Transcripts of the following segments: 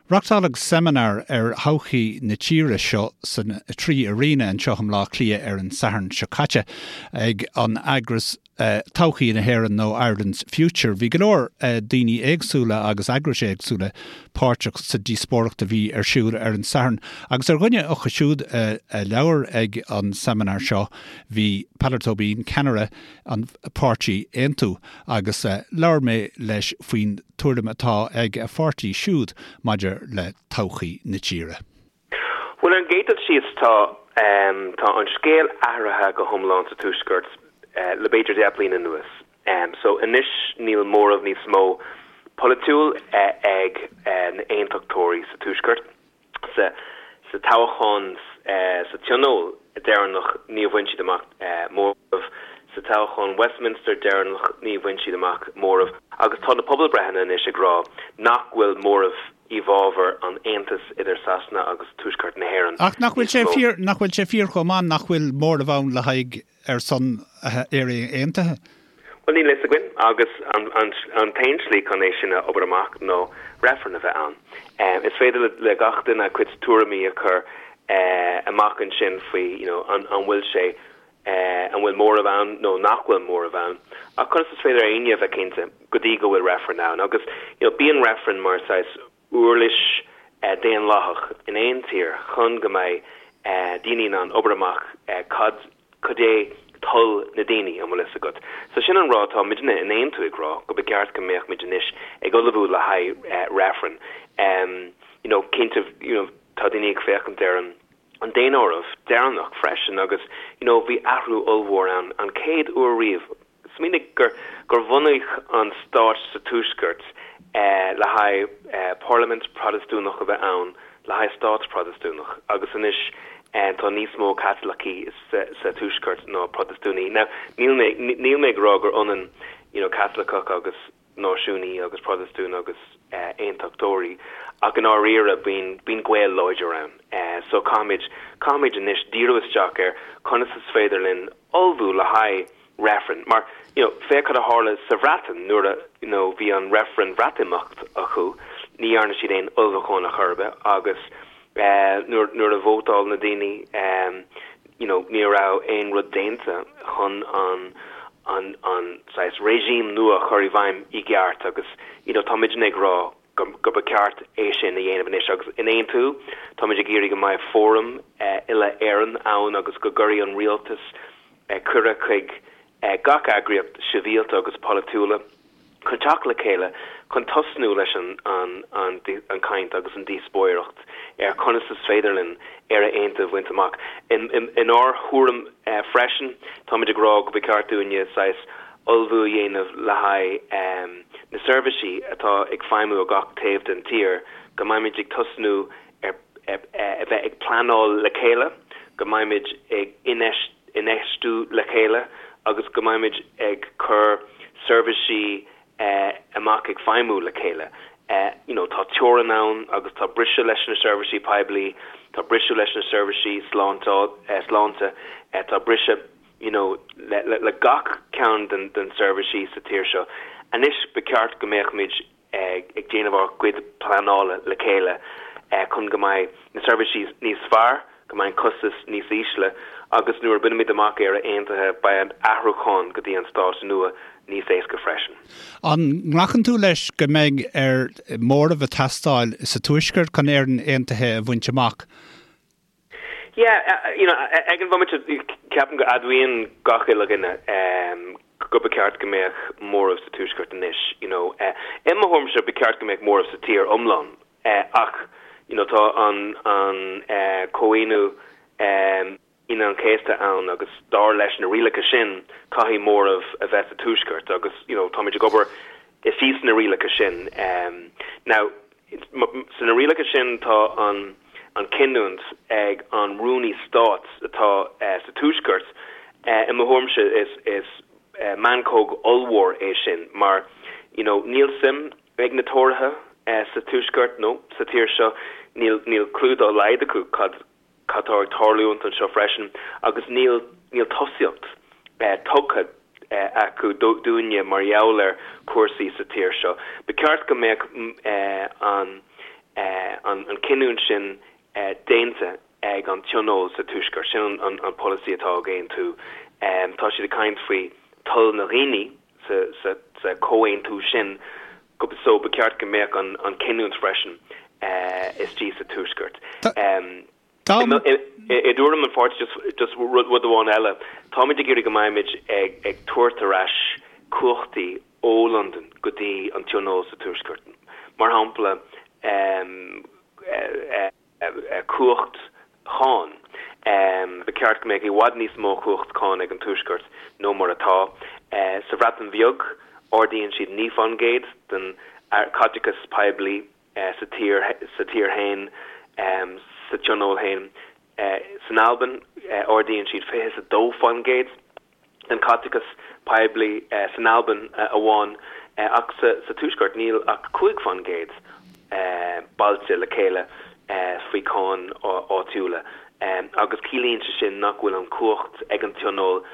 Reachtáladh seimineár ar thodhchaí na tíre seo san 3 Arena anseo i mBleá Cliath ar an Satharn seo caite ag an eagras Todhchaí na hÉireann nó Ireland's Future. Bhí go leor daoine éagsúla agus eagrais éagsúla páirteach sa díospóireacht a bhí ar siúl ar an Satharn agus ar dhuine acu siúd a labhair ag an seimineár seo bhí Peadar Tóibín, ceannaire an pháirtí Aontú agus labhair mé leis faoin tuairim atá ag a pháirtí siúd maidir le todhchaí na tíre. Bhuel, ar an gcéad dul síos, tá tá an scéal athraithe go hiomlán sa Tuaisceart le b'fhéidir 10 bliana anuas. So anois níl móramh níos mó polaitiúil ag na hAontachtóirí sa Tuaisceart. Sa toghchán sa Tionól deireanach níor bhain siad amach móramh, sa toghchán Westminster deireanach ní bhain siad amach móramh agus tá na pobalbreitheanna anois ag rá nach bhfuil móramh i bhfabhar an aontais idir Sasana agus Tuaisceart na hÉireann Ach nach bhfuil sé fíor, nach bhfuil sé fíor chomh maith nach bhfuil móramh ann le haghaidh ar son Éire Aontaithe? Bhuel, níl a fhios againn, agus an t-aon slí chun é sin a obair amach ná reifreann a bheith ann. Is féidir le gach duine a cuid tuairimí a chur amach ansin faoi you know an bhfuil sé, an bhfuil móramh ann nó nach bhfuil móramh ann, ach conas is féidir éinne a bheith cinnte go dtí go bhfuil reifreann ann? Agus you know bíonn reifreann mar saghas uirlis daonlathach in aon tír chun go mbeidh daoine in ann obair amach cad cad é toil na daoine, an bhfuil fhios agat. So sin an rud atá muidne in Aontú ag rá, go ba cheart go mbeadh muid anois ag ullmhú le haghaidh reifreann. You know, cinnte, you know, tá daoine ag féachaint ar an an daonáireamh deireanach freisin agus, you know, bhí athrú ollmhór ann, an chéad uair riamh, Smaoinigh gur gur bunaíodh an stát sa Tuaisceart le haghaidh parlaimint Protastúnach a bheith ann, le haghaidh stát Protastúnach, agus anois tá níos mó Caitlicigh sa Tuaisceart ná Protastúnaigh. Now, níl mé níl mé ag rá gur ionann you know Caitliceach agus náisiúnaí agus Protastún agus aontachtóirí, ach i ndáiríre bíonn bíonn gaol láidir ann. So caithfimid caithfimid anois díriú isteach ar conas is féidir linn ullmhú le haghaidh reifreann. Mar, you know, féach cad a tharla sa Bhreatain nuair a, you know, bhí an reifreann Bhreatimeacht acu, ní dhearna siad aon ullmhúchán ar chor ar bith agus eh, nuair, nuair a vótáil na daoine, eh, you know, ní raibh aon rud déanta chun an, an, an saghas regime nua a chur i bhfeidhm i gceart agus, you know, tá muidne ag rá go, go ba ceart é sin a dhéanamh anois agus in Aontú táimid ag iarraidh go mbeidh fóram eh, uile-Éireann ann agus go gcuirfidh an rialtas cuireadh chuig gach eagraíocht sibhialta agus polaitiúla chun teacht le chéile chun tosnú leis an chaint agus an díospóireacht ar conas is féidir linn Éire Aontaithe a bhaint amach. Inár thuairim freisin, táimid ag rá go ba cheart dúinne saghas ullmhú a dhéanamh le haghaidh na seirbhísí atá ag feidhmiú ar gach taobh den tír, go mbeimid ag tosnú ar a bheith ag pleanáil le chéile, go mbeimid ag infheistiú le chéile agus go mbeimid ag cur seirbhísí amach ag feidhmiú le chéile. You know, tá teorainn ann agus tá briseadh leis na seirbhísí poiblí, tá briseadh leis na seirbhísí sláinte, tá briseadh you know, le gach ceann den seirbhísí sa tír seo. Anois ba cheart go mbeadh muid ag déanamh ár gcuid pleanála le chéile chun go mbeidh na seirbhísí níos fearr, go mbeidh an costas níos ísle agus nuair a bhainimid amach Éire Aontaithe beidh an athrúchán go dtí an stát nua níos éasca freisin. An nglacann tú leis go mbeidh ar móramh ag teastáil sa Tuaisceart chun Éirinn Aontaithe a bhaint amach? Yeah, you know, ag an bhomaite ceapaim go admhaíonn gach uile dhuine go ba cheart go mbeadh móramh sa Tuaisceart anois, you know. I mo thuairimse ba cheart go mbeadh móramh sa tír iomlán ach, you know, tá an an Comhaontú Aoine an Chéasta ann agus dar leis na rialacha sin caithfidh móramh a bheith sa Tuaisceart agus, you know, táimid ag obair istigh sna rialacha sin. Now, Sna rialacha sin tá an an cinniúint ag an Rúnaí Stáit atá sa Tuaisceart. I mo thuairimse is is meancóg ollmhór é sin mar you know níl suim ag na Tóraithe sa Tuaisceart nó sa tír seo, níl níl clue dá laghad acu cad cad tá ag tarlúint anseo freisin agus níl níl tosaíocht tugtha acu dúinne mar gheall ar chúrsaí sa tír seo. Ba cheart go mbeadh an an cinniúint sin déanta ag an Tionól sa Tuaisceart. Sin an polasaí atá ag Aontú. Tá siad ag caint faoi toil na dhaoine sa chomhaontú sin so ba cheart go mbeadh an cinniúint freisin istigh sa Tuaisceart. I dtuairim an pháirtí, just rud amháin eile, táimid ag iarraidh go mbeimid ag tabhairt ar ais cumhachtaí ó Londain go dtí an Tionól sa Tuaisceart. Mar shampla, cumhacht cháin. Ba cheart go mbeadh i bhfad níos mó cumhacht cáin ag an Tuaisceart nó mar atá. Sa Bhreatain Bheag, ardaíonn siad 9 fán gcéad den chaiteachas poiblí sa tír sa tír féin, sa tionól féin. San Albain, ardaíonn siad 22 fán gcéad den chaiteachas poiblí san Albain amháin, ach sa Tuaisceart níl ach 5 fán gcéad bailte le chéile faoi cháin áitiúla. Agus ciallaíonn sé sin nach bhfuil an chumhacht ag an Tionól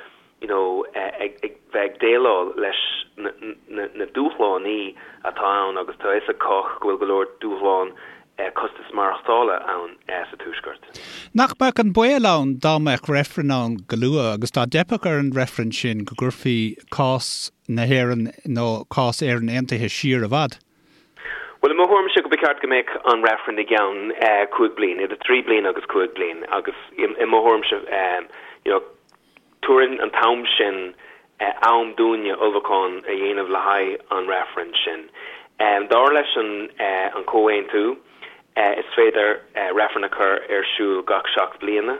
you know, ag bheith ag déileáil leis na dúshláin atá ann agus tá a fhios ag cách go bhfuil go leor dúshlán costas maireachtála ann sa Tuaisceart. Nach mbeadh an baol ann dá mbeadh reifreann ann go luath agus dá dteipfeadh ar an reifreann sin go gcuirfí cás na hÉireann nó cás Éireann Aontaithe siar i bhfad? Bhuel, i mo thuairimse go ba cheart go mbeadh an reifreann i gceann 5 bliain, idir 3 bliain agus 5 bliain agus i mo thuairimse you know, Tabharann an t-am sin am dúinne ullmhúchán a dhéanamh le haghaidh an reifrinn sin. Dar leis an Chomhaontú, is féidir reifreann a chur ar siúl gach 7 bliana,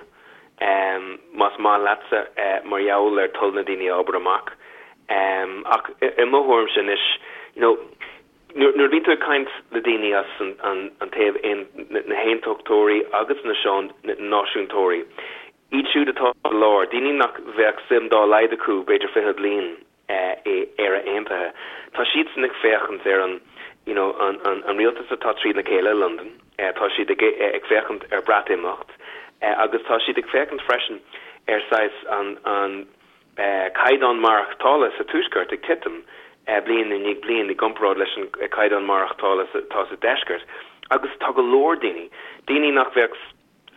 más maith leatsa, mar gheall ar toil na daoine a obair amach. Ach i mo thuairimse anois, you know, nuair a bhíonn tú ag caint le daoine as an taobh, na haontachtóirí agus na náisiúntóirí, Iad siúd atá sa lár, daoine nach bheadh suim dá laghad acu b'fhéidir 20 bliain i Éire Aontaithe, tá siadsan ag féachaint ar an you know an an rialtas atá trína chéile i Londain, tá siad ag ag féachaint ar Breatimeacht agus tá siad ag féachaint freisin ar saghas an an caighdeán maireachtála sa Tuaisceart ag titim bliain i ndiaidh bliain i gcomparáid leis an caighdeán maireachtála atá sa Deisceart agus tá go leor daoine, daoine nach bheadh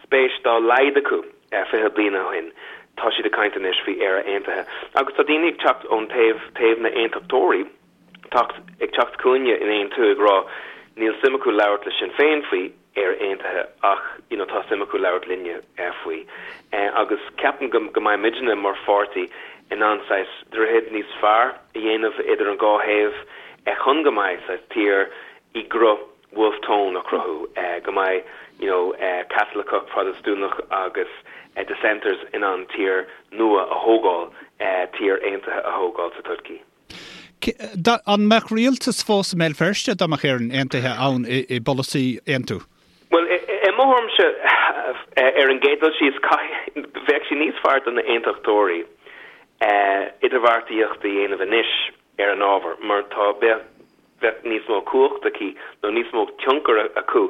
spéis dá laghad acu 20 bliain ó shin, tá siad ag caint anois faoi Éire Aontaithe. Agus tá daoine ag teacht ón taobh, taobh na n-aontachtóirí, teacht, ag teacht chugainne in Aontú ag rá níl suim acu labhairt le Sinn Féin faoi Éire Aontaithe ach you know tá suim acu labhairt linne faoi. Agus ceapaim go, go mbeidh muidne mar pháirtí in ann saghas droichead níos fearr a dhéanamh idir an dhá thaobh chun go mbeidh saghas tír i gcruth Wolfe Tone a chruthú, go mbeidh you know Caitliceach, Protastúnach agus dissenters in ann tír nua a thógáil, tír aontaithe a thógáil sa todhchaí. An mbeadh rialtas fós i mBéal Feirste dá mbeadh Éirinn aontaithe ann i bpolasaí Aontú? Bhuel, i mo thuairimse, ar an gcéad dul síos, bheadh sé níos fearr do na aontachtóirí idirbheartaíocht a dhéanamh anois ar an ábhar mar tá, bheadh, bheadh níos mó cumhacht aici nó níos mó tionchar acu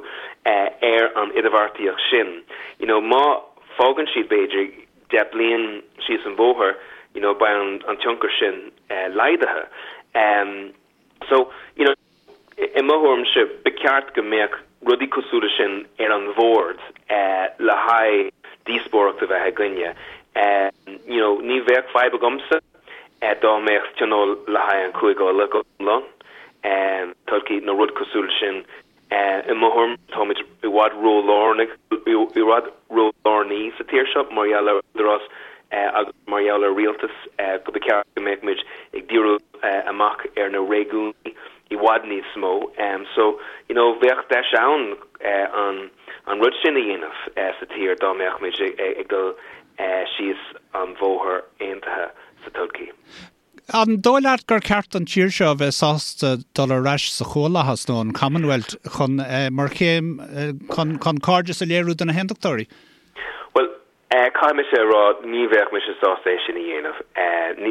ar an idirbheartaíocht sin. You know, má fágann siad b'fhéidir 10 bliain síos an bhóthar, you know, beidh an tionchar sin laghdaithe. So, you know, i mo thuairimse, ba cheart go mbeadh rudaí cosúil leis sin ar an bhord le haghaidh díospóireacht a bheith againne. You know, ní bheadh fadhb agamsa dá mbeadh tionól le haghaidh an Chúige Uladh go hiomlán, todhchaí nó rud cosúil leis sin. I mo thuairim, táimid i bhfad ró-lárnach, i bhfad ró-lárnaí sa tír seo mar gheall ar údarás agus mar gheall ar rialtas go ba cheart go mbeadh muid ag díriú amach ar na réigiúin i bhfad níos mó. So, you know, bheadh deis ann an an rud sin a dhéanamh sa tír dá mbeadh muid ag dul síos an bhóthar aontaithe sa todhchaí. An dóigh leat gur ceart don tír seo a bheith sásta dul ar ais sa Chomhlathas nó an Commonwealth chun, mar chéim chun cairdeas a léiriú do na hAontachtóirí? Bhuel, caithfidh mise a rá, ní bheadh mise sásta é sin a dhéanamh.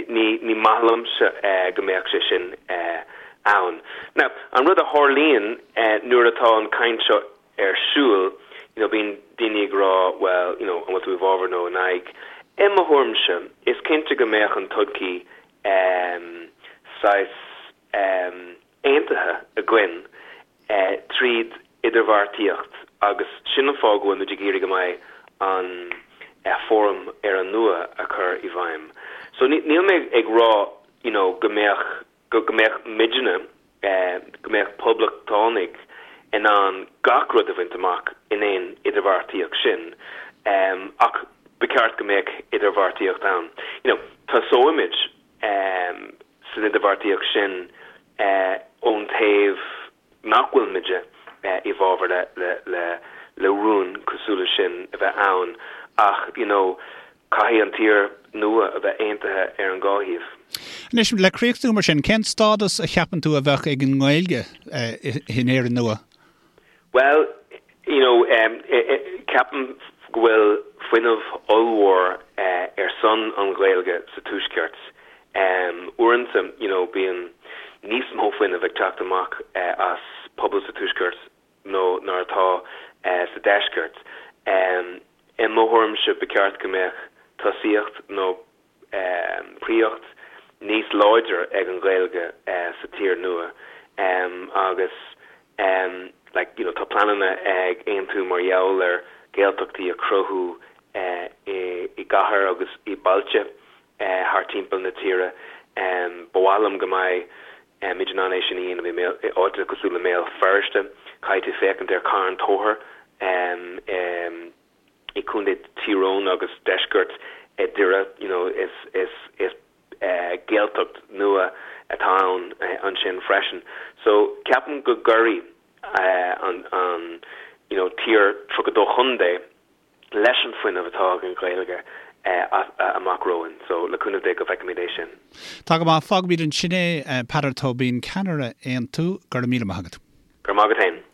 Ní maith liomsa go mbeadh sé sin ann. Now, an rud a tharlaíonn nuair atá an caint seo ar siúl, you know, bíonn daoine ag rá, well, you know, an bhfuil tú i bhfabhar nó in aghaidh? I mo thuairimse, is cinnte go mbeadh an todhchaí em saghas em aontaithe againn eh tríd idirbheartaíocht. Agus sin an fáth go bhfuil muid ag iarraidh go mbeidh an fóram Éire Nua a chur i bhfeidhm. So níl mé ag rá you know go mbeadh, go mbeadh muidne, go mbeadh poblachtánaigh in ann gach rud a bhaint amach in aon idirbheartaíocht sin ach ba cheart go mbeadh idirbheartaíocht ann. You know tosóimid san idirbheartaíocht sin ón taobh nach bhfuil muide i bhfabhar le rún cosúil le sin a bheith ann ach you know caithfidh an tír nua a bheith aontaithe ar an dhá thaobh. Anois, le críochnú mar sin, cén stádas a cheapann tú a bheadh ag an nGaeilge in Éirinn nua? Bhuel, you know, ceapaim go bhfuil fuinneamh ollmhór ar son an Ghaeilge sa Tuaisceart. Uaireanta, you know, bíonn níos mó fuinnimh ag teacht amach as pobal sa Tuaisceart ná mar atá sa Deisceart. I mo thuairimse, ba cheart go mbeadh tosaíocht nó príocht níos láidre ag an Ghaeilge sa tír nua agus like you know tá pleananna ag Aontú mar gheall ar Gaeltachtaí a chruthú i gcathair agus i bailte thar timpeall na tíre. Ba mhaith liom go mbeidh muid in ann é sin a dhéanamh i áiteanna cosúil le mBéal Feirste. Caithfidh tú féachaint ar Carn Tóchair i Contae Thír Eoghain agus deisceart Doire, you know, is is is Gaeltacht nua atá ann ansin freisin. So ceapaim go gcuirfidh an an you know tír 32 chontae leis an fuinneamh atá ag an Ghaeilge amach romhainn. So le cúnamh Dé go bhfeicfimid é sin. Tá go maith. Fágfaimid ansin é. Peadar Tóibín, ceannaire Aontú, go raibh míle maith agat. Go raibh maith agat féin.